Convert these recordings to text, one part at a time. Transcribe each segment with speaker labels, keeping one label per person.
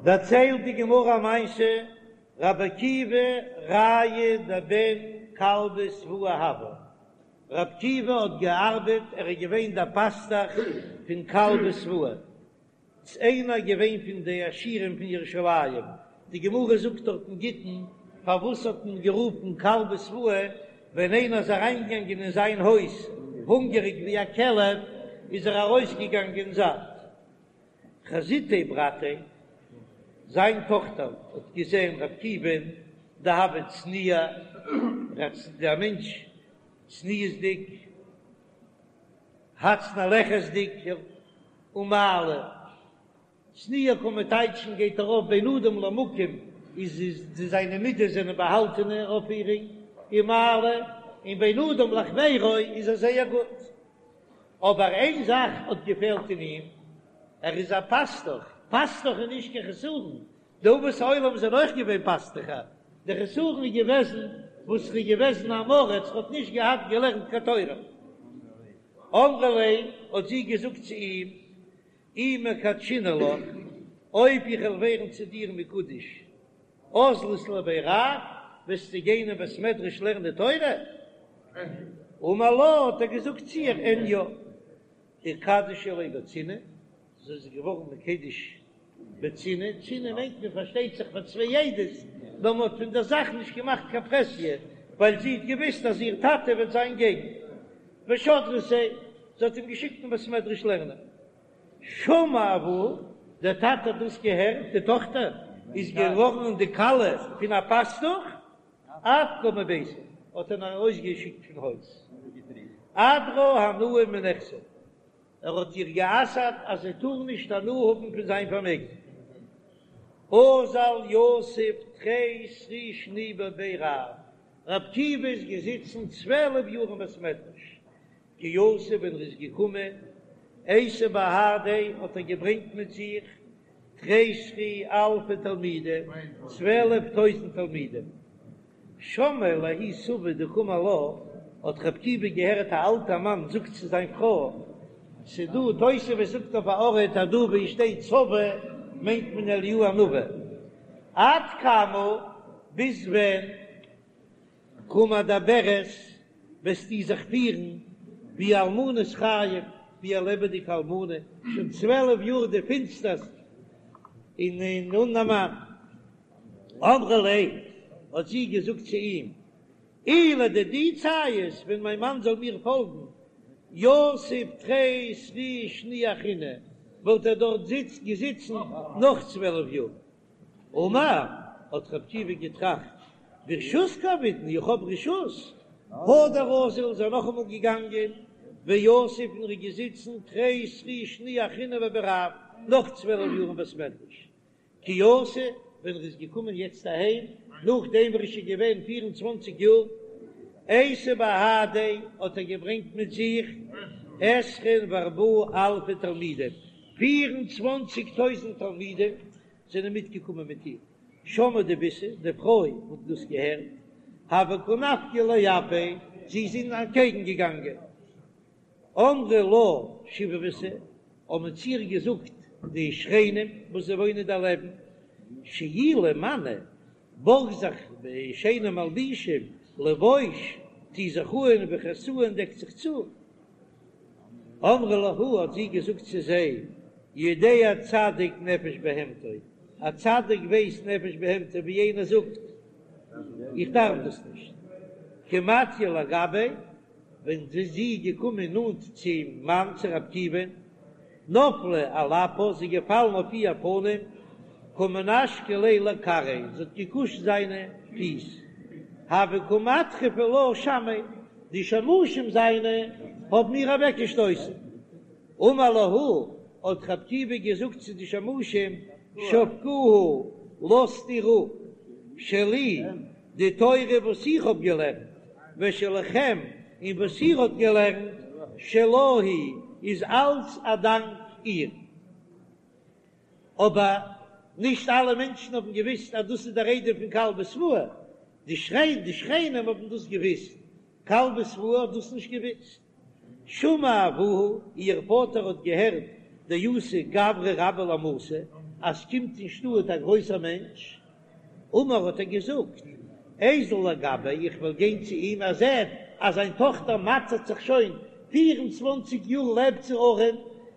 Speaker 1: דערציילט די גמרא א מעשה, רבי עקיבא רעיא דבן כלבא שבוע הוה, רבי עקיבא האט געארבעט, ער איז געווען דער פאסטעך פון כלבא שבוע, ס'איז איינער געווען פון די עשירים פון ירושלים, די גמרא זאגט דארט אין גיטין, פארוואס האט מען גערופן כלבא שבוע, ווען איינער איז אריינגעגאנגען אין זיין הויז הונגעריג ווי א כלב, איז ער ארויסגעגאנגען זאט. חזיתיה ברתיה, זיין טאכטער האט געזען ר' עקיבא'ן דהוה צניע, דער מענטש צניעות'דיג, הצנע לכת'דיג, ומעלי, צניע קען מען טייטשן גייט ארויף בין אדם למקום, איז איז זיינע מידות זענען באהאלטענע אויפפירונג, ומעלי, און בין אדם לחבירו איז ער זייער גוט. אבער איין זאך האט געפעלט אין אים, ער איז א פאסטוך, פאסטוך איז נישט קיין חסרון, די אבות העולם זענען אויך געווען פאסטוכער, די חסרון איז געוועזן וואס ער איז געוועזן עם הארץ, ער האט נישט געהאט געלערנט קיין תורה. אמרה ליה, האט זי געזאגט צו אים, אי מקדשינא לך, אויב איך וועל ווערן צו דיר מקודש, אזלת לבי רב, וועסטו גיין אין בית מדרש לערנען תורה? אמר לה, האט ער געזאגט צו איר, אין יא. איקדשא ליה בצנעה, זי איז געווארן מקודש בצנעה, צנעה מיינט מען פארשטייט זיך פאר צוויי עדות, נאר מען האט פון דער זאך נישט געמאכט קיין פרהסיא, ווייל זי האט געוואוסט אז איר טאטע וועט זיין געגן. ושדרתיה, זי האט אים געשיקט אין בית מדרש לערנען. שמע אבוה, דער טאטע האט דאס געהערט, די טאכטער איז געווארן די כלה פון א פאסטוך, אפקה מביתיה, האט ער איר ארויסגעשיקט פון הויז. אדרה הנאה מנכסיה, ער האט איר גע'אסר'ט אז זי טאר נישט הנאה האבן פון זיין פארמעגן. אזל יתיב תרי סרי שני בבי רב, רב עקיבא איז געזיצן 12 יאר אין בית מדרש, כי אתא ווען ער איז געקומען, אייתי בהדיה האט ער געברענגט מיט זיך תרי סרי אלפי תלמידי, 12 טויזנט תלמידים. שמעיה לההוא סבא דקאמר לה, האט רב עקיבא געהערט א אלטע מאן זאגט צו זיין פרוי, ס'דא תוספות זאגט אויף א ארט אז דא ווי שטייט סבא מיינט מען אליהו הנביא, עד כמה ביז ווען קא מדברת וועסטו זיך פירן ווי אלמנת חיים, ווי א לעבעדיגע אלמנה, שוין 12 יאר די פינסטערסט און אן א מאן. אמרה ליה, האט זי געזאגט צו אים, אי לדידי ציית, ווען מיין מאן זאל מיר פאלגן, יתיב תרי סרי שני אחריני, וואלט ער דארט געזיצן נאך 12 יאר. אמר, האט רב עקיבא געטראכט, ברשות קא עבידנא, איך האב רשות. הדר אזיל איז ער נאכאמאל געגאנגען, ויתיב און ער איז געזיצן תרי סרי שני אחריני בבי רב, נאך 12 יאר אין בית מדרש. כי אתא, ווען ער איז געקומען יעצט אהיים, נאכדעם וואס ער איז שוין געווען 24 יאר, אייתי בהדיה, האט ער געברענגט מיט זיך עשרין וארבעה אלפי תלמידים, 24 טויזנט תלמידים זענען מיטגעקומען מיט אים. שמעה דביתהו, די פרוי האט דאס געהערט, הוה קא נפקא לאפיה, זי איז אים אנטקעגן געגאנגען. אמרי לה שיבבתא, האבן צו איר געזאגט די שכנים וואס זיי וואוינען דערלעבן, שאילי מאני, בארג זיך שיינע מלבישים, לבוש, טו זיך אן, וכסאי און דעק זיך צו. אמרה להו, האט זי געזאגט צו זיי, יודע צדיק נפש בהמתו, א צדיק ווייסט נפש בהמתו, ווי איינער זאגט, איך דארף דאס נישט. כי מטיא לגביה, ווען זי איז געקומען נאנט צום מאן צו רב עקיבא'ן, נפלה על אפה, זי איז געפאלן אויף איר פנים, קא מנשקא ליה לכרעיה, זי האט געקושט זיינע פיס, הוו קא מדחפי לה שמי, די שמשים זיינע האבן איר אוועקגעשטויסן. אמר להו, האט רב עקיבא געזאגט צו די שמשים, שבקוה, לאזט איר אפ, שלי, די תורה וואס איך האב געלערנט, ושלכם, און וואס איר האט געלערנט, שלה היא, איז אלץ א דאנק איר. אבער נישט אלע מענטשן האבן געוואוסט אז דאס איז דער איידעם פון כלבא שבוע, די שכנים האבן דאס געוואוסט, כלבא שבוע האט דאס נישט געוואוסט. שמע אבוה, איר פאטער האט געהערט דאתא גברא רבה למתא. אז ס'קומט אין שטאט א גרויסער מענטש, אמר האט ער געזאגט, איזיל לגביה, איך וועל גיין צו אים, ער זעט אז זיין טאכטער מאטערט זיך שוין פיר און צוואנציג יאר לעבט זי ארעם,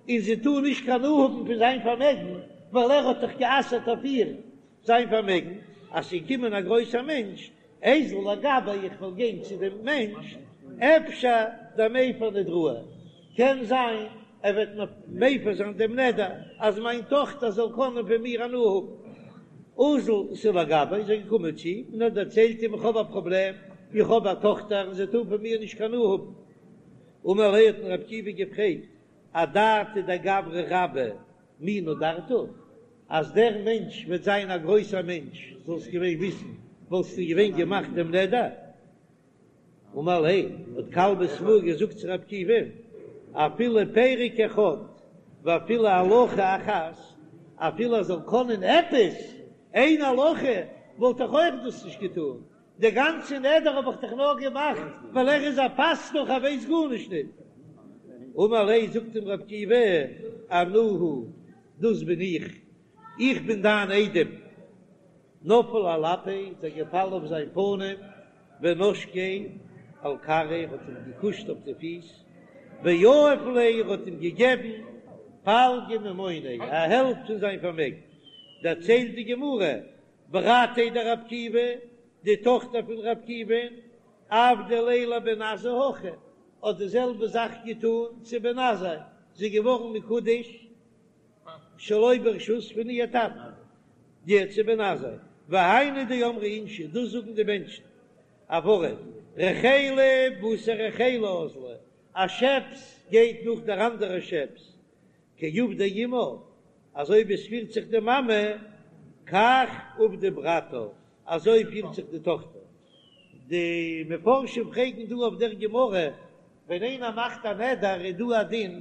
Speaker 1: און זי טאר נישט קיין הנאה האבן פון זיין פארמעגן, ווייל ער האט דאך גע'אסר'ט אויף איר זיין פארמעגן, אז ס'איז געקומען א גרויסער מענטש, איזיל לגביה, איך וועל גיין צו דעם מענטש, אפשר דמיפר נדראי, קען זיין ער וועט מיר מפר זיין דעם נדר, אז מיין טאכטער זאל קענען פון מיר הנאה האבן. אזל אתא לגביה, איז ער געקומען צו אים און האט דערציילט אים, איך האב א פראבלעם, איך האב א טאכטער און זי טאר פון מיר נישט קיין הנאה האבן. אמר ליה האט אים רבי עקיבא געפרעגט, אדעתא דגברא רבה מי נדרת? אז דער מענטש וועט זיין א גרויסער מענטש, זאלסט געווען וויסן, וואלסטו געווען געמאכט דעם נדר? אמר ליה, האט כלבא שבוע געזאגט צו רבי עקיבא, אפילו פרק אחד ואפילו הלכה אחת, אפילו ער זאל קענען עפעס איין הלכה, וואלט איך אויך דאס נישט געטאן, די גאנצע נדר האב איך דאך נאר געמאכט ווייל ער איז א פאסטוך ער ווייסט גארנישט ניט. אמר ליה, זאגט אים רבי עקיבא, אנא הוא, דאס בין איך, איך בין דיין איידעם. נפל על אפיה, איז ער געפאלן אויף זיין פנים, ונשקיה על כרעיה, האט אים געקושט אויף די פיס, ויהב ליה, האט אים געגעבן פלגא ממוניה, א העלפט פון זיין פארמעגן. דערציילט די גמרא, ברתיה דרבי עקיבא, די טאכטער פון רבי עקיבא'ן, עבדה ליה לבן עזאי הכי, האט די זעלבע זאך געטאן צו בן עזאי, זי איז געווארן מקודש שלא ברשות פון איר טאטן, די צו בן עזאי, והיינו דאמרי אינשי, דאס זאגן די מענטשן, א ווארט, רחילא בתר רחילא אזלא, א שעפס גייט נאך דער אנדערע שעפס, כי עבדה אמה, אזוי ווי עס פירט זיך די מאמע, כך עבדה ברתה, אזוי פירט זיך די טאכטער. די מפרשים פרעגן דא אויף דער גמרא, ווען איינער מאכט א נדר איז דא א דין,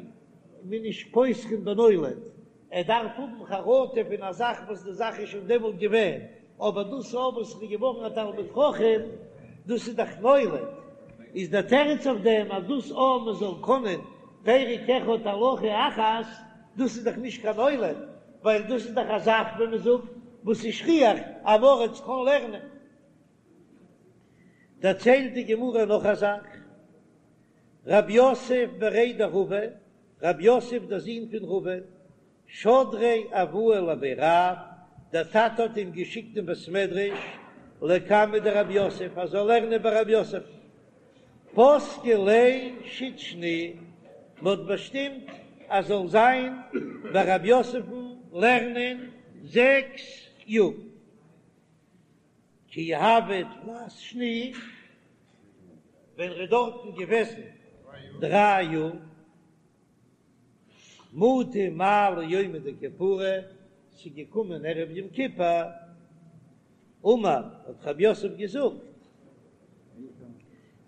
Speaker 1: מ'איז נישט פותחין בנולד, ער דארף האבן חרטה פון א זאך וואס די זאך איז שוין דעמאלט געווען, אבער דאס אויף וואס איז געווארן א תלמיד חכם, דאס איז דאך נולד, איז דער תירוץ אויף דעם אז דאס אויב מען זאל קענען פרק אחד הלכה אחת, דאס איז דאך נישט קיין נולד, ווייל דאס איז דאך א זאך ווי מען זאגט וואס איז שכיח, אן עם הארץ קען לערנען. דערציילט די גמרא נאך א זאך, רב יוסף בריה דרבא, רב יוסף דער זון פון רבא, שדריה אבוה לבי רב, דער טאטע האט אים געשיקט אין בית מדרש לקמיה דרב יוסף ער זאל לערנען ביי רב יוסף, פסקו ליה שית שני, מען האט באשטימט ער זאל זיין ביי רב יוסף'ן לערנען זעקס יאר. כי הוה תלת שני, ווען ער איז דארטן געוועזן דריי יאר, מטא מעלי יומא דכיפורי, ס'איז געקומען ערב יום כיפור, אמר, האט רב יוסף געזאגט,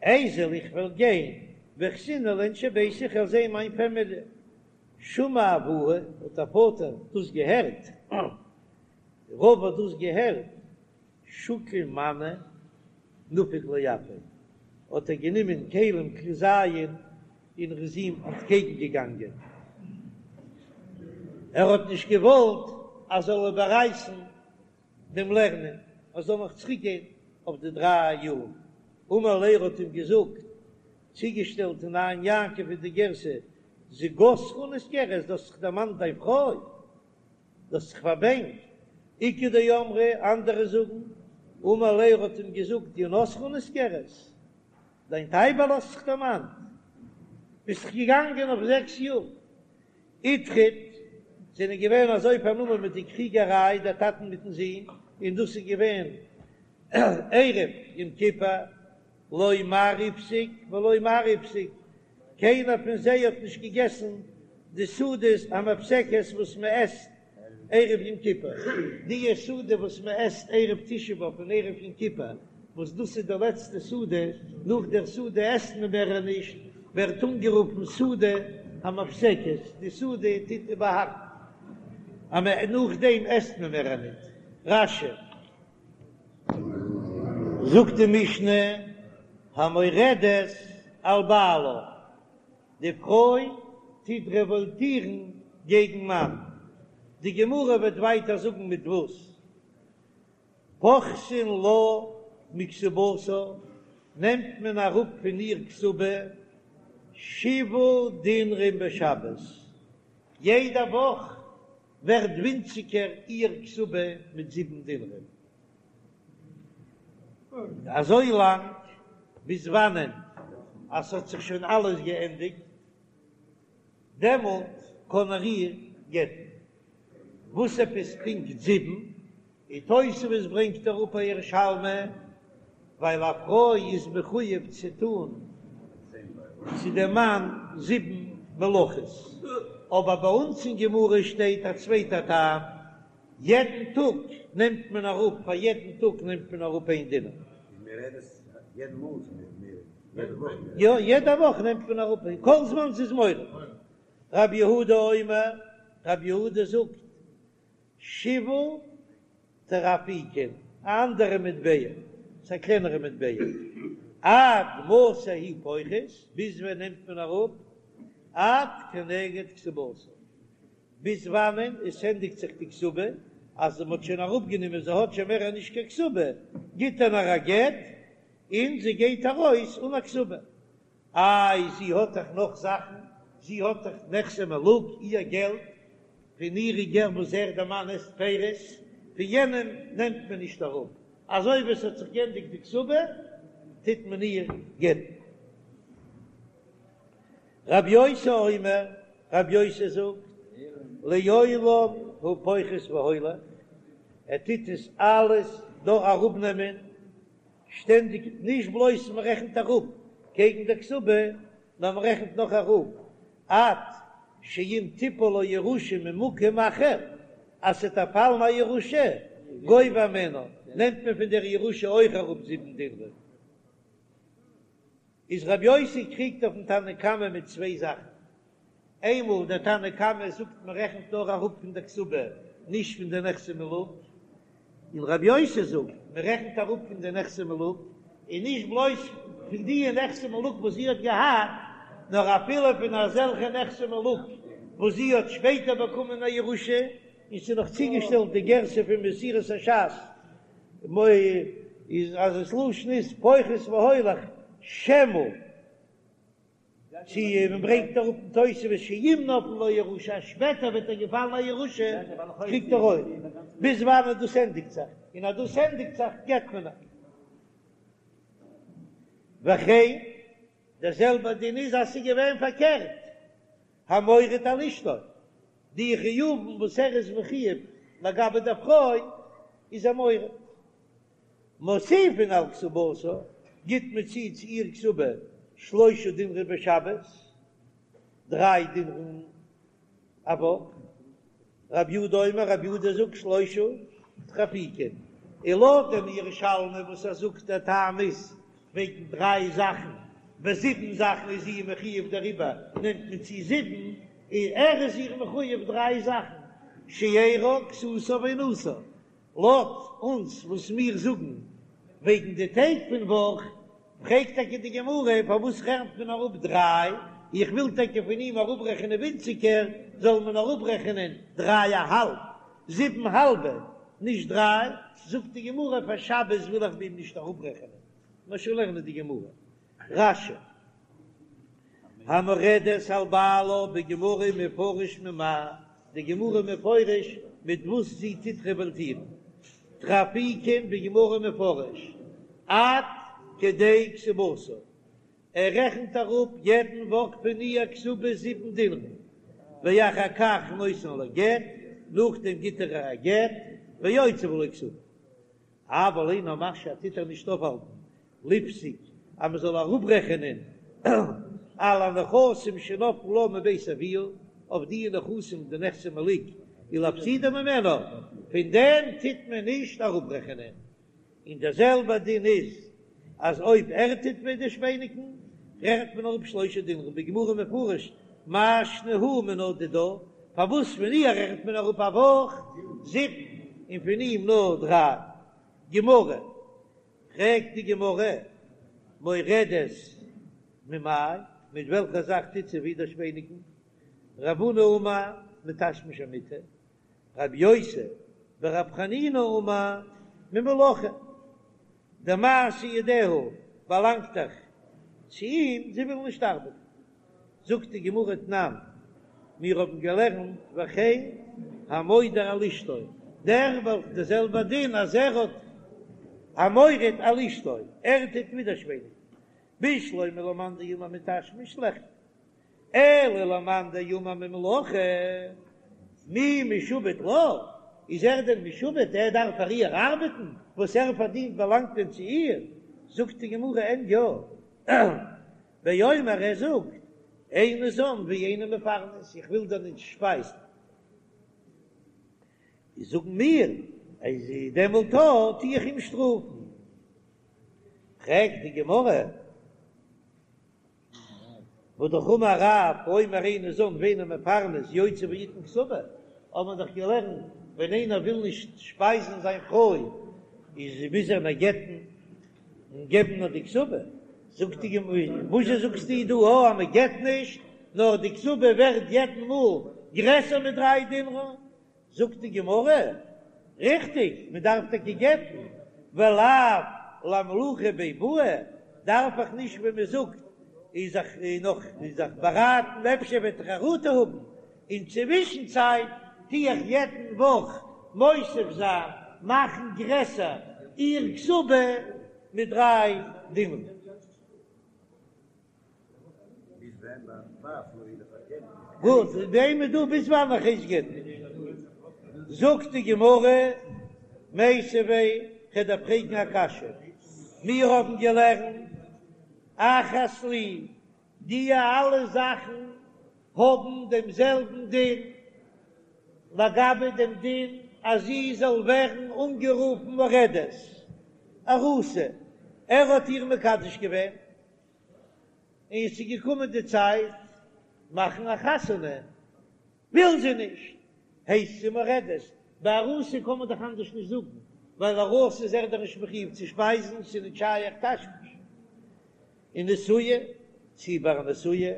Speaker 1: איזיל איך וועל גיין, ואחזינהו לאינשי ביתי איך וועל זען מיין פעמיליע, שמע אבוה, האט דער פאטער דאס געהערט, רבא האט דאס געהערט, שקיל מנא נפק לאפיה, האט ער גענומען כלים כלי זיין און ער איז אים אנטקעגן געגאנגען, ער האט נישט געוואלט אז זאל איבעררייסן דעם לערנען, ער זאל נאך צוריק גיין אויף די דריי יאר, אמר ליה ער האט אים געזאגט, צוגעשטעלט אין עין יעקב איז די גירסא, זוגתך נזכרת, דו האסט זיך דערמאנט דיין פרוי. דו האסט זיך פארבענקט, איכא דאמרי, אנדערע זאגן, אמר ליה ער האט אים געזאגט, יונתך נזכרת, דיין טייבעלע האסט זיך דערמאנט, ביסט דאך געגאנגען אויף זעקס יאר. איטריד, זענען געווען אזוי פארנומען מיט די קריגעריי, דער טאטן מיטן זון, און דאס איז געווען ערב יום כיפור, לא מר איפסיק ולא מר איפסיק, קיינער פון זיי האט נישט געגעסן די סעודת המפסקת וואס מען עסט ערב יום כיפור, די סעודה וואס מען עסט ערב תשעה באב און ערב יום כיפור, וואס דאס איז די לעצטע סעודה, נאך דער סעודה עסט מען מער נישט, ווערט אנגערופן סעודה המפסקת, די סעודה טוט איבערהאקן אז מען נאכדעם עסט מען מער ניט. רש"י. זאגט די משנה, המורדת על בעלה, די פרוי טוט רעוואלטירן געגן מאן. די גמרא וועט ווייטער זאגן מיט וואס. פוחתין לה מכתובתה, נעמט מען אראפ פון איר כתובה שבעה דינרים בשבת, יעדע וואך ווערט ווינציגער איר כתובה מיט זיבן דינרים, אזוי לאנג ביז וואנען אז ס'האט זיך שוין אלעס געענדיגט, דעמאלט קען ער איר גט'ן. וואס עפעס פונקט זיבן? און תוספות ברענגט אראפ א ירושלמי, ווייל א פרוי איז מחויב צו טון צו דעם מאן זיבן מלאכות, אבער ביי אונז אין גמרא שטייט א צווייטע טעם, יעדן טאג נעמט מען אראפ, פאר יעדן טאג נעמט מען אראפ איין דינר. יא, יעדע וואך נעמט מען אראפ, כל זמן ס'איז מורד. רב יהודה אומר, רב יהודה זאגט, שבעה טרפעיקין, א אנדערע מטבע, ס'איז א קלענערע מטבע, עד מתי הוא פוחת, ביז ווען נעמט מען אראפ, עד כנגד כתובתה, ביז וואנען עס ענדיגט זיך די כתובה, אז מען האט שוין אראפגענומען, זי האט שוין מער נישט קיין כתובה, גיט ער איר א גט, און זי גייט ארויס אן א כתובה. איי זי האט דאך נאך זאכן, זי האט דאך נכסי מלוג, איר געלט, פון אירע געלט וואס ער דער מאן עסט פירות, פון יענעם נעמט מען נישט אראפ, אזוי ווי עס האט זיך גענדיגט די כתובה טוט מען איר גט'ן. רב יוסי אומר, רב יוסי זאגט, לעולם הוא פוחת והולך, ער טוט עס אלעס דא אראפנעמען שטענדיג, נישט בלויז מען רעכנט אראפ קעגן דער כתובה, נאר מען רעכנט נאך אראפ עד שאם תיפול לו ירושה ממקום אחר, אז ס'וועט איר פאלן א ירושה, גובה הימנה, נעמט מען פון דער ירושה אויך אראפ זיבן דינרים. איז רבי יוסי קריגט אויפן תנא קמא מיט צוויי זאכן, איינמאל דער תנא קמא זאגט מען רעכנט נאר אראפ פון דער כתובה נישט פון די נכסי מלוג, און רבי יוסי זאגט מען רעכנט אראפ פון די נכסי מלוג, און נישט בלויז פון די נכסי מלוג וואס זי האט געהאט, נאר אפילו פון אזעלכע נכסי מלוג וואס זי האט שפעטער באקומען א ירושה, און ס'איז נאך צוגעשטעלט די גירסא פון מסורת הש"ס איז אז עס לשון איז פוחת והולך שמא. צו מען ברענגט אראפ אין תוספות שאם נפלה לו ירושה אז שפעטער וועט איר געפאלן א ירושה קריגט ער אויך, ביז וואנעט דאס ענדיגט זיך, און אז דאס ענדיגט זיך גט מען איר. וכן, דער זעלבער דין איז אז ס'איז געווען פארקערט, המורד על אשתו, די חיובים וואס ער איז מחויב לגבי דער פרוי איז ער מורד. מוסיפין על כתובתה, גיט מען צו צו איר כתובה שלושה דינרים בשבת, דריי דינרים א וואך, רב יהודה אומר, רב יהודה זאגט שלושה טרפעיקין, און לויט דעם ירושלמי וואס ער זאגט דער טעם איז וועגן דריי זאכן, ביי זיבן זאכן איז זי מחויב דעריבער נעמט מען צו זיבן, און ער איז איר מחויב דריי זאכן, שארה כסותה ועונתה, לויט אונז וואס מיר זאגן וועגן די טעג פון וואך, פרעגט טאקע די גמרא פארוואס רעכנט מען אראפ דריי, איך וויל טאקע פון אים אראפרעכענען ווינציגער, זאל מען אראפרעכענען דריי א האלב, זיבן האלבע, נישט דריי, זאגט די גמרא פאר שבת וויל איך ביי אים נישט אראפרעכענען, מיר שוין לערנען די גמרא, רש"י. המורדת על בעלה בגמרא מפרש ממאי, די גמרא מפרש מיט וואס זי טוט רעוואלטירן, טרפעיקין בגמרא מפרש עד כדי כתובתה, ער רעכנט אראפ יעדן וואך פון איר כתובה זיבן דינרים, ואחר כך נותן לה גט, נאכדעם גיט ער איר א גט, ויוציא בלא כתובה. אבל אינו משהה טוט ער נישט אויפהאלטן לפסוק אז מען זאל אראפרעכענען על הנכסים שנפלו לה מבית אביה, אויף די נכסים די נכסי מלוג ולהפסידה ממנה, פון דעם טוט מען נישט אראפרעכענען, און דער זעלבער דין איז אז אויב ער טוט ווידערשפעניגן רעכנט מען אראפ שלושה דינרים, בגמרא מפרש מאי שנא הא מינה דידה, פארוואס פון איר רעכנט מען אראפ א וואך זיבן און פון אים נאר דריי? גמרא, פרעגט די גמרא, מורדת ממאי, מיט וועלכע זאך טוט זי ווידערשפעניגן? רב הונא אמר מתשמיש המיטה. רבי יוסי ברבי חנינא אמר ממלאכה, די מעשה ידיה באלאנגט דאך צו אים, זי וויל נישט ארבעטן. זאגט די גמרא תנן, מיר האבן געלערנט וכן המודר על אשתו, דער וועלכע די זעלבע דין אז ער האט המורד על אשתו, ער טוט ווידערשפעניגן, בשלמא למאן דאמר מתשמיש ליחכר, אלא למאן דאמר ממלאכה, מי משועבד לה, איז ער דען משועבד, ער דארף פאר איר ארבעטן, וואס ער פארדינט באלאנגט דען צו איר, זאגט די גמרא אין יא. באומר ער זאגט, איני זן ואיני מפרנס, איך וויל דיר נישט שפייזן. איז זאגן מיר, אז דעמאלט טו איך אים שטראפן. פרעגט די גמרא, והא אמר רב, האומר איני זן ואיני מפרנס יוציא ויתן כתובה, האבן מיר דאך געלערנט, ווען איינער וויל נישט שפייזן זיין פרוי, איז מוז ער איר גט'ן. און געבן נאר די כתובה, זאגט די גמרא, וואזשע זאגסטו דא א אז מען גט נישט, נאר די כתובה ווערט יעדן מאל גרעסער מיט דריי דינרן, זאגט די גמרא, ריכטיג, מען דארף טאקע גט'ן, ולאו לאימלוכי ביה בעי, דארף איך נישט ווען מען זאגט איז זיך נאך זיך באראטן אפשר וועט ער חרטה האבן, אין צווישן צייט טו איך יעדן וואך מוסיף זיין מאכן גרעסער איר כתובה מיט דריי דינר. גוט, דעם איז דא ביז וואנען איך הייס גט'ן. זאגט די גמרא, מיתיבי, כ'וועל דיר פרעגן א קשיא, מיר האבן געלערנט אחת לי, די אלע זאכן האבן דעם זעלבן דין לגבי דעם דין אז זי זאל ווערן אנגערופן מורדת, ארוסה, ער האט איר מקדש געווען און עס איז געקומען די צייט מאכן א חתונה, וויל זי נישט, הייסט זי מורדת, ביי ארוסה קען מען דאך אנדערש נישט זאגן, ווייל ארוסה איז ער דאך נישט מחויב צו שפייזן, ס'איז נישט שייך תשמיש. און נשואה, צי ביי א נשואה,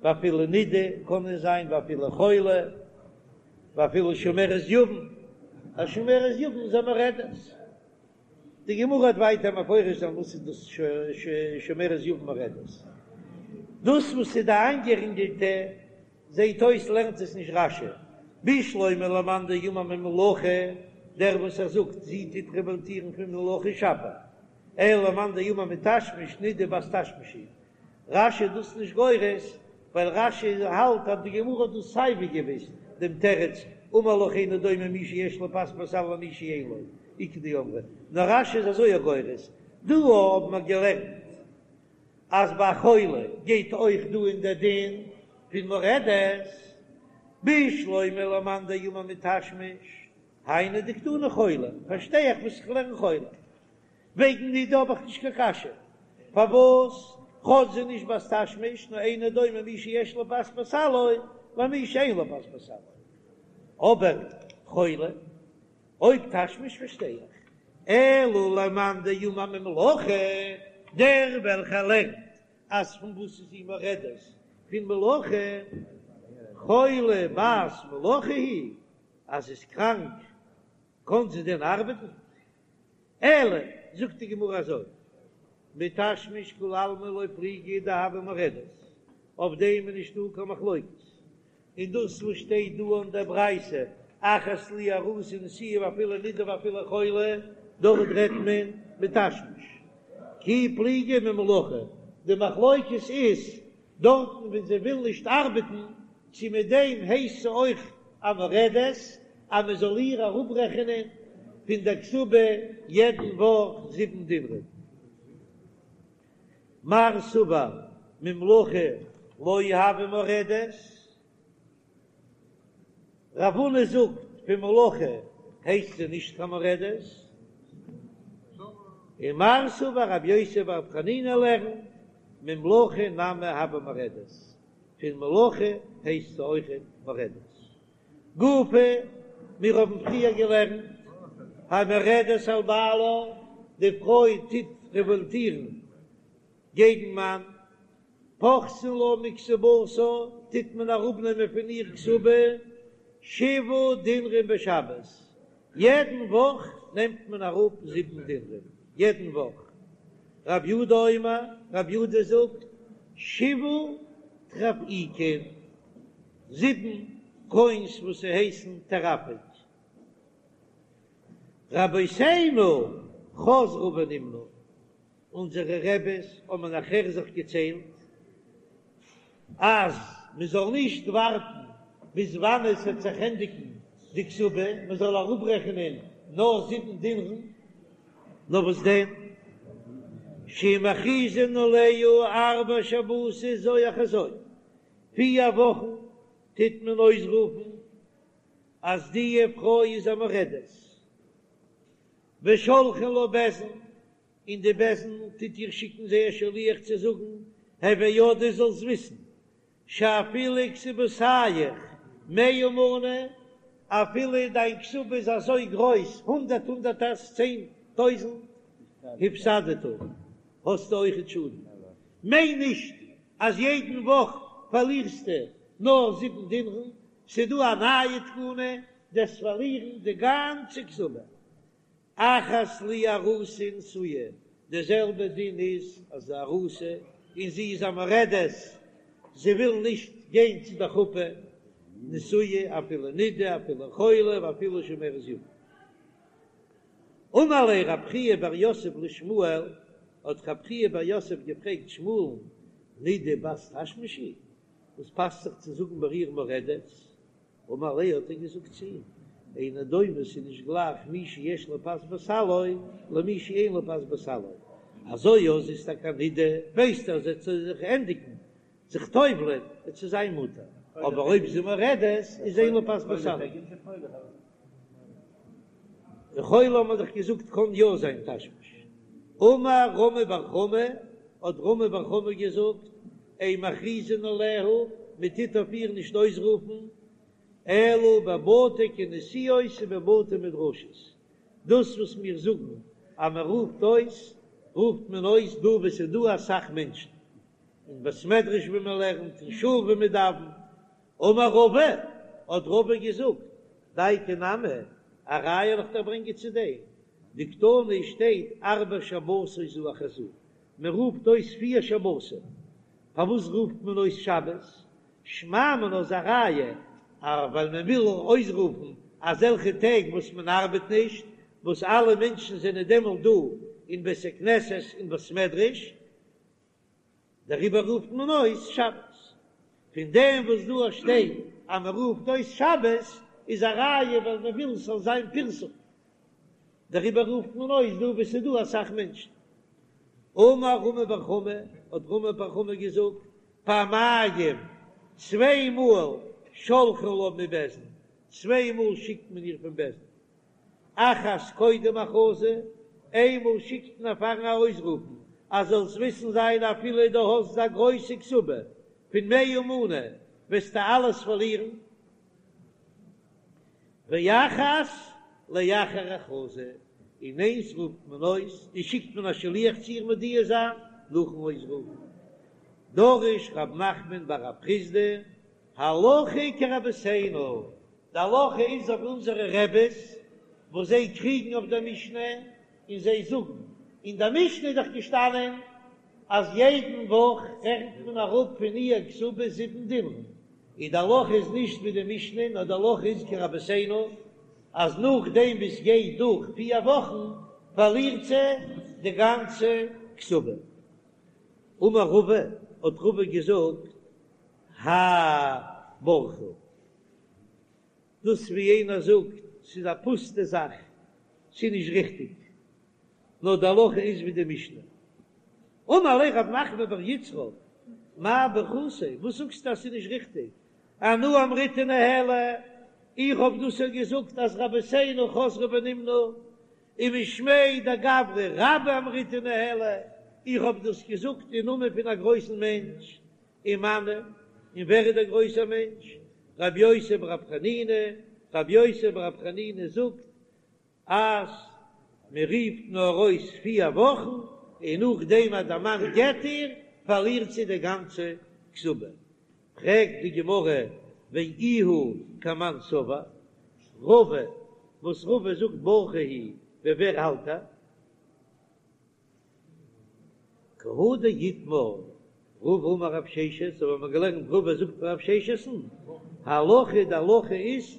Speaker 1: ואפילו נידה קען עס זיין, ואפילו חולה, ואפילו שומרת יבם, א שומרת יבם איז א מורדת. די גמרא וועט ווייטער מפרש זיין וואס איז דאס שומרת יבם מורדת. דאס וואס איז די איינגערינגעלטע זעהט אויס לערנט עס נישט רש"י, בשלמא למאן דאמר ממלאכה, דער וואס ער זאגט זי טוט רעוואלטירן פון מלאכה שפיר, אלא למאן דאמר מתשמיש נידה בת תשמיש היא. רש"י איז דאס נישט גורס, ווייל רש"י האלט אז די גמרא האט דאס סייווי געוויסט דעם תירוץ, אמר לך אינו דומה מי שיש לו פת בסלו למי שאין לו, איכא דאמרי, נאר רש"י איז אזוי גורס, דא האבן מיר געלערנט אז ביי א חולה גייט אויך דא אין דער דין פון מורדת, בשלמא למאן דאמר מתשמיש, היינו דקתני חולה, פארשטיי איך וואס איך לערן חולה. וועגן נידה האב איך נישט קיין קשיא, פארוואס כאטש זי נישט בת תשמיש, נאר אינו דומה מי שיש לו פת בסלו למי שאין לו פת בסלו. אבער חולה, אויב תשמיש פארשטיי איך, אלא למאן דאמר ממלאכה, דער וועלכער לערנט אז פון וואס איז זי מורדת? פון מלאכה, חולה בת מלאכה היא, אז זי איז קראנק קען זי דען ארבעטן? אלא, זאגט די גמרא אזוי, מתשמיש כולי עלמא לא פליגי דהויא מורדת, אויף דעם איז נישטא קיין מחלוקת, און דאס וואס שטייט דא אין דער ברייתא אחת לי ארוסה ונשואה ואפילו נידה ואפילו חולה, דארט רעדט מען מתשמיש, כי פליגי ממלאכה, די מחלוקת איז דארטן ווען זי וויל נישט ארבעטן, צו מיט דעם הייסט זי אויך א מורדת, אז מען זאל איר אראפרעכענען פון דער כתובה יעדן וואך זיבן דינרים. מר סבר ממלאכה לא הויא מורדת, רב הונא זאגט פון מלאכה הייסט זי נישט קיין מורדת, און מר סבר רבי יוסי ברבי חנינא לערנט ממלאכה נמי הויא מורדת, פון מלאכה הייסט זי אויכעט מורדת. גופא, מיר האבן פריער געלערנט המורדת על בעלה, די פרוי טוט רעוואלטירן געגן מאן, פוחתין לה מכתובתה, טוט מען אראפנעמען פון איר כתובה. שבעה דינרים בשבת, יעדן וואך נעמט מען אראפ זיבן דינרים, יעדן וואך. רב יודא אומר, רב יודא זאגט, שבעה טרפעיקין, זיבן קוינס וואס ס'הייסן טרפעיק. רבותינו חזרו ונמנו, אונזערע רעבעס האבן נאכער זיך געציילט אז מען זאל נישט ווארטן ביז וואנען עס וועט זיך ענדיגן די כתובה, מען זאל אראפרעכענען נאר זיבן דינרן, נאר וואס דען, שמכריזין עליה ארבע שבתות זו אחר זו, פיר וואכן טוט מען אויסרופן אז די פרוי איז א מורדת, ושולחין לה בית דין, און די בית דין טוט איר שיקן זייער שליח צו זאגן, הוי יודעת זאלסט וויסן, שאפילו כתובתיך מאה מנה, אפילו דיין כתובה איז אזוי גרויס, הונדערט הונדערטערס, 10,000, הפסדת, האסטו אויכעט שאדן. מיין נישט אז יעדן וואך פארלירסטו נאר זיבן דינרן, ס'דא א נייע תקנה, דו'סט פארלירן די גאנצע כתובה. אחת לי ארוסה ונשואה, די זעלבע דין איז אז די ארוסה און זי איז א מורדת, זי וויל נישט גיין צו די חופה, נשואה אפילו נידה אפילו חולה ואפילו שומרת יבם. אמר ליה רב חייא בר יוסף לשמואל, האט רב חייא בר יוסף געפרעגט שמואל'ן, נידה בת תשמיש היא, וואס פאסט זיך צו זאגן ביי איר מורדת? אמר ליה האט ער געזאגט צו אים, אינו דומה ס'איז נישט גלייך מי שיש לו פת בסלו למי שאין לו פת בסלו, אזוי אז זי איז טאקע א נידה, ווייסט ער אז עס וועט זיך ענדיגן זיך טובל'ען וועט זי זיין מותר, אבער אויב זי מורדת איז אין לו פת בסלו. חולה האט מען דאך געזאגט קען יא זיין תשמיש. אמר רמי בר חמא, האט רמי בר חמא געזאגט, אין מכריזין עליה, מען טוט אויף איר נישט אויסרופן, אלא בבתי כנסיות ובבתי מדרשות, דאס וואס מיר זאגן אז מען רופט אויס, רופט מען אויס דא וואו עס איז דא אסאך מענטשן, אין בית מדרש וואו מען לערנט, אין שול וואו מען דאווענט. אמר רבא, האט רבא געזאגט, דייקא נמי, א ראיה וועל איך דיר ברענגען צו דעם, דקתני שטייט ארבע שבתות זו אחר זו, מען רופט אויס פיר שבתים, פארוואס רופט מען אויס שבת? שמע מינה איז א ראיה אז ווייל מען וויל אויסרופן אזעלכע טעג וואס מען ארבעט נישט, וואס אלע מענטשן זענען דעמאלט דא אין בית הכנסת און בית מדרש, דעריבער רופט מען אויס שבת. פון דעם וואס דא שטייט אז מען רופט אויס שבת איז א ראיה ווייל מען וויל ס'זאל זיין פרסום, דעריבער רופט מען אויס דא וואו ס'איז דא אסאך מענטשן. אמר רמי בר חמא, האט רמי בר חמא געזאגט, פעמיים, צוויי מאל, שולחין לה מבית דין, צוויי מאל שיקט מען איר פון בית דין. אחת קודם הכרזה, איינמאל שיקט מען פארן ארויסרופן אז זאלסט וויסן זיין אפילו דו האסט א גרויסע כתובה פון מאה מנה וועסטו אלעס פארלירן, ואחת לאחר הכרזה, און איינס רופט מען אויס און שיקט מען א שליח צו איר מודיע זיין נאכן אויסרופן. דרש רב נחמן בר רב חסדא הלכה כרבותינו, די הלכה איז אויף אונזערע רעבעס וואס זיי קריגן אויף דער משנה און זיי זאגן, אין דער משנה איז דאך געשטאנען אז יעדן וואך רעכנט מען אראפ פון איר כתובה זיבן דינרים, און די הלכה איז נישט ווי די משנה נאר די הלכה איז כרבותינו אז נאכדעם ווי ס'גייט דורך פיר וואכן פארלירט זי די גאנצע כתובה. אמר רבא, האט רבא געזאגט, האי בורחא. דאס ווי יענער זאגט, ס'איז א פוסטע זאך, ס'איז נישט ריכטיג, נאר די הלכה איז ווי די משנה. אמר ליה רב נחמן בר יצחק, מאי בורכתיה, וואס זאגסטו אז ס'איז נישט ריכטיג? אנא אמריתה ניהלי, איך האב דאס יא געזאגט אז רבותינו חזרו ונמנו, ומשמיה דגברא רבה אמריתה ניהלי, איך האב דאס געזאגט אין נאמען פון א גרויסן מענטש, ומנו, און ווער איז דער גרויסער מענטש? רבי יוסי ברבי חנינא, רבי יוסי ברבי חנינא זאגט אז מען רופט נאר אויס פיר וואכן, און נאכדעם אז דער מאן גט איר, פארלירט זי די גאנצע כתובה. פרעגט די גמרא. ואיהו כמאן סבר, רבא, וואס רבא זאגט ברכה היא, ווי ווער האלט ער? כי הא דאיתמר רבא אמר רב ששת, אזוי האבן מיר געלערנט רבא זאגט פון רב ששת'ן, הלכה די הלכה איז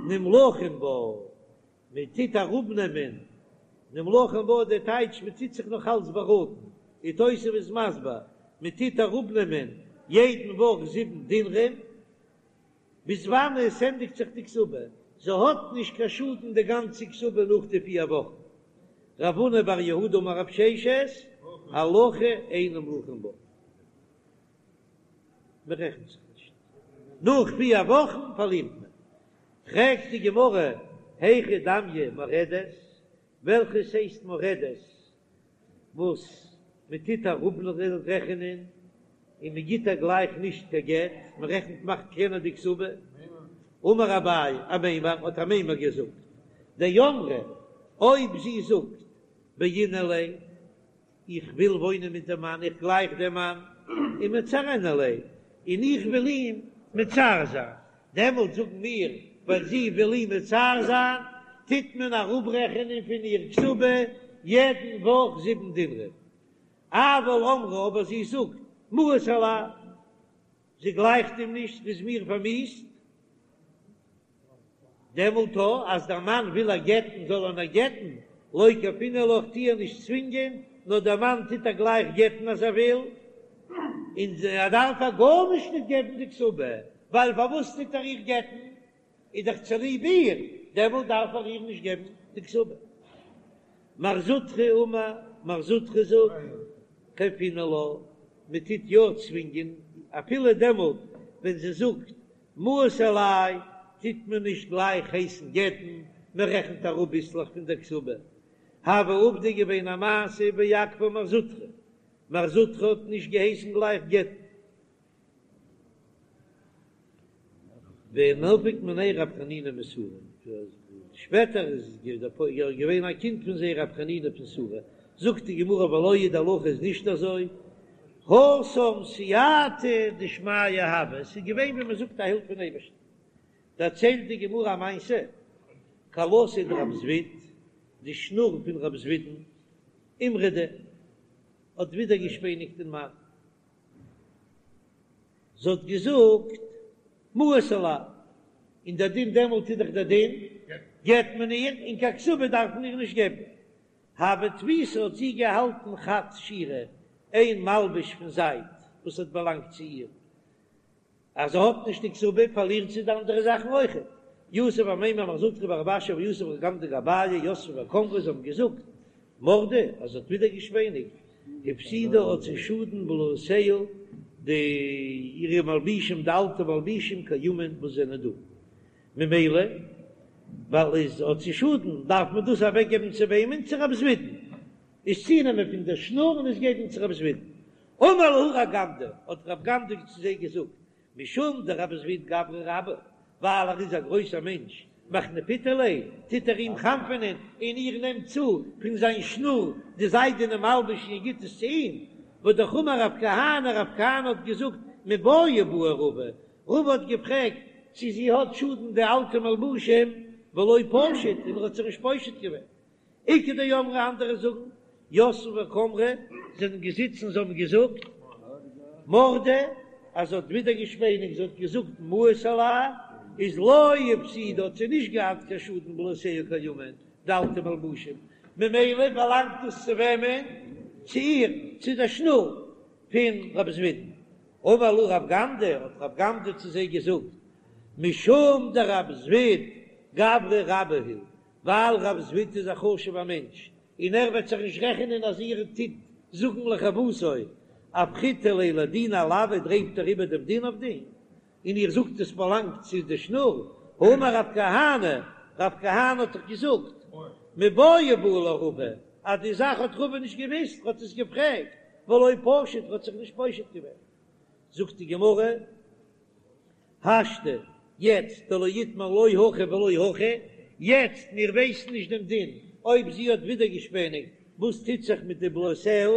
Speaker 1: נמלכין בה, מען טוט אראפנעמען נמלכין בה די טייטש מען טוט זיך נאך אלץ באראטן, ווי תוספות איז מסביר, מען טוט אראפנעמען יעדן וואך זיבן דינרים, ביז וואנען עס ענדיגט זיך די כתובה, זי האט נישט קיין שאדן די גאנצע כתובה נאך די פיר וואכן. רב הונא בר יהודה אמר רב ששת, הלכה אין נמלכין בה, מען רעכנט זיך נישט, נאך פיר וואכן פארלירט מען. פרעגט די גמרא, היכי דמיא מורדת, וועלכעס הייסט מורדת? וואס מען טוט אראפרעכענען און מען גיט איר גלייך נישט קיין גט, מען רעכנט מאכט קלענער די כתובה, אמר אביי אמימר האט אמימר געזאגט, דאמרה אויב זי זאגט בעינא ליה, איך וויל וואוינען מיט דעם מאן, איך גלייך דעם מאן, ומצערנא ליה, און איך וויל אים מצער זיין, דעמאלט זאגן מיר, ווייל זי וויל אים מצער זיין, טוט מען אראפרעכענען פון איר כתובה יעדן וואך זיבן דינרים. אבל אמרה, אבער זי זאגט, מאוס עלי, זי גלייכט אים נישט, ס'איז מיר פארמיאוסט. דעמאלט אז דער מאן וויל איר גט'ן זאל ער איר גט'ן, לא כייפינן לה, כ'טו איר נישט צווינגען, נאר דער מאן טוט איר גלייך גט'ן אז ער וויל, און ער דארף איר גארנישט נישט געבן די כתובה, ווייל פארוואס טוט ער איר גט'ן? איז דאך צוליב איר, דעמאלט דארף ער איר נישט געבן די כתובה. מר זוטרא אמר, מר זוטרא זאגט, כייפינן לה, מען טוט יא צווינגען, אפילו דעמאלט ווען זי זאגט מאוס עלי טוט מען נישט גלייך הייסן גט'ן, מען רעכנט אראפ ביסלעך פון דער כתובה. הוה עובדא געווען א מעשה ואכפה מר זוטרא, מר זוטרא האט נישט געהייסן גלייך גט'ן. ונפק מינייהו רב חנינא מסורא, שפעטער איז געווען א קינד פון זיי רב חנינא פון סורא, זאגט די גמרא ולא היא די הלכה איז נישט אזוי, התם סייעתא דשמיא הוה, עס איז געווען ווי מען זאגט א הילף פון אייבערשטן. דערציילט די גמרא א מעשה, כלתיה דרב זביד, די שנור פון רב זביד'ן, אימרדה, האט ווידערגעשפעניגט אין מאן, זי האט געזאגט מאוס עלי, און דער דין דעמאלט איז דאך דער דין, גט מען איר, און קיין כתובה דארף מען איר נישט געבן. הוה תפיסה האט זי געהאלטן חד שירא, איין מלבוש פון זייד וואס האט באלאנגט צו איר, אז זי האט נישט די כתובה פארלירט זי די אנדערע זאכן אויכעט. יתיב אמימר מר זוטרא ורב אשי ויתיב רב גמדא גבייהו יתבי וקאמרי זיי האבן געזאגט מרדה אז זי האט ווידערגעשפעניגט הפסידה האט זי שאדן בלאותיה די אירע מלבישים די אלטע מלבישים קיימין וואס זענען דא ממילא ווייל איז האט זי שאדן דארף מען דאס אוועק געבן צו וועמען צו רב זבידן איז צונעמען פון דער שנור און עס געבן צו רב זבידן אמר להו רב גמדא האט רב גמדא צו זיי געזאגט משום דרב זביד גברא רבה, ווייל ער איז א גרויסער מענטש, מחנפיתו ליה, טוט ער אים חנפענען, און איר נעמט צו פון זיין שנור די זיידענע מלבוש און איר גיט עס צו אים, והא אמר רב כהנא, רב כהנא האט געזאגט, מיבעיא בעי רבא, רבא האט געפרעגט צו זי האט שאדן די אלטע מלבושים, ולא פשיט, און ער האט זיך נישט פושט געווען. איכא דאמרי אנדערע זאגן, יתבי וקאמרי זענען געזיצן זיי האבן געזאגט מרדה אז זי האט ווידערגעשפעניגט זי האט געזאגט מאוס עלי איז לא הפסידה האט זי נישט געהאט קיין שאדן בלאותיה קיימין די אלטע מלבושים ממילא באלאנגט דאס צו וועמען? צו איר צו דער שנור פון רב זבידן אמר להו רב גמדא האט רב גמדא צו זיי געזאגט משום דרב זביד גברא רבה הוא ווייל רב זביד איז א חשוב'ער מענטש און ער וועט זיך נישט רעכענען אז איר טוט זאגן לחובתו, אפכיתו ליה לדינא עילויה דרייט ער איבער דעם דין אויף דעם, און איר זאגט עס באלאנגט צו די שנור, האמר רב כהנא, רב כהנא האט דאך געזאגט, מיבעיא בעי לה רבא, אז די זאך האט רבא נישט געוויסט, ער האט עס געפרעגט, ולא פשיט, ער האט זיך נישט פושט געווען. זאגט די גמרא. השתא, יעצט דלא איתמר לא הכי ולא הכי, יעצט מיר ווייסן נישט דעם דין אויב זי האט ווידערגעשפעניגט, וואס טוט זיך מיט די בלאותיה,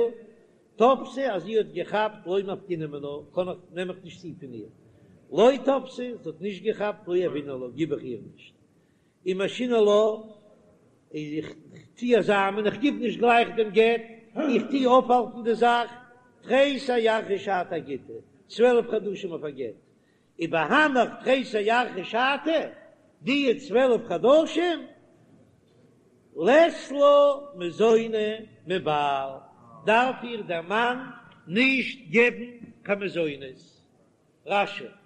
Speaker 1: תפסה אז זי האט געכאפט לא מפקינן מינה, קען איך, נעם איך נישט צו פון איר. לא תפסה, זי האט נישט געכאפט, לא יהבינן לה, גיב איך איר נישט. ומשהינן לה, איך טו איר זאמען, איך גיב נישט גלייך דעם גט, איך טו אויפהאלטן די זאך, תריסר ירחי שתא אגיטא, 12 חדשים אויף א גט, ובהנך תריסר ירחי שתא, די 12 חדשים, לית לה מזוני מבעל, דארף איר דער מאן נישט געבן קיין מזונות. רש"י.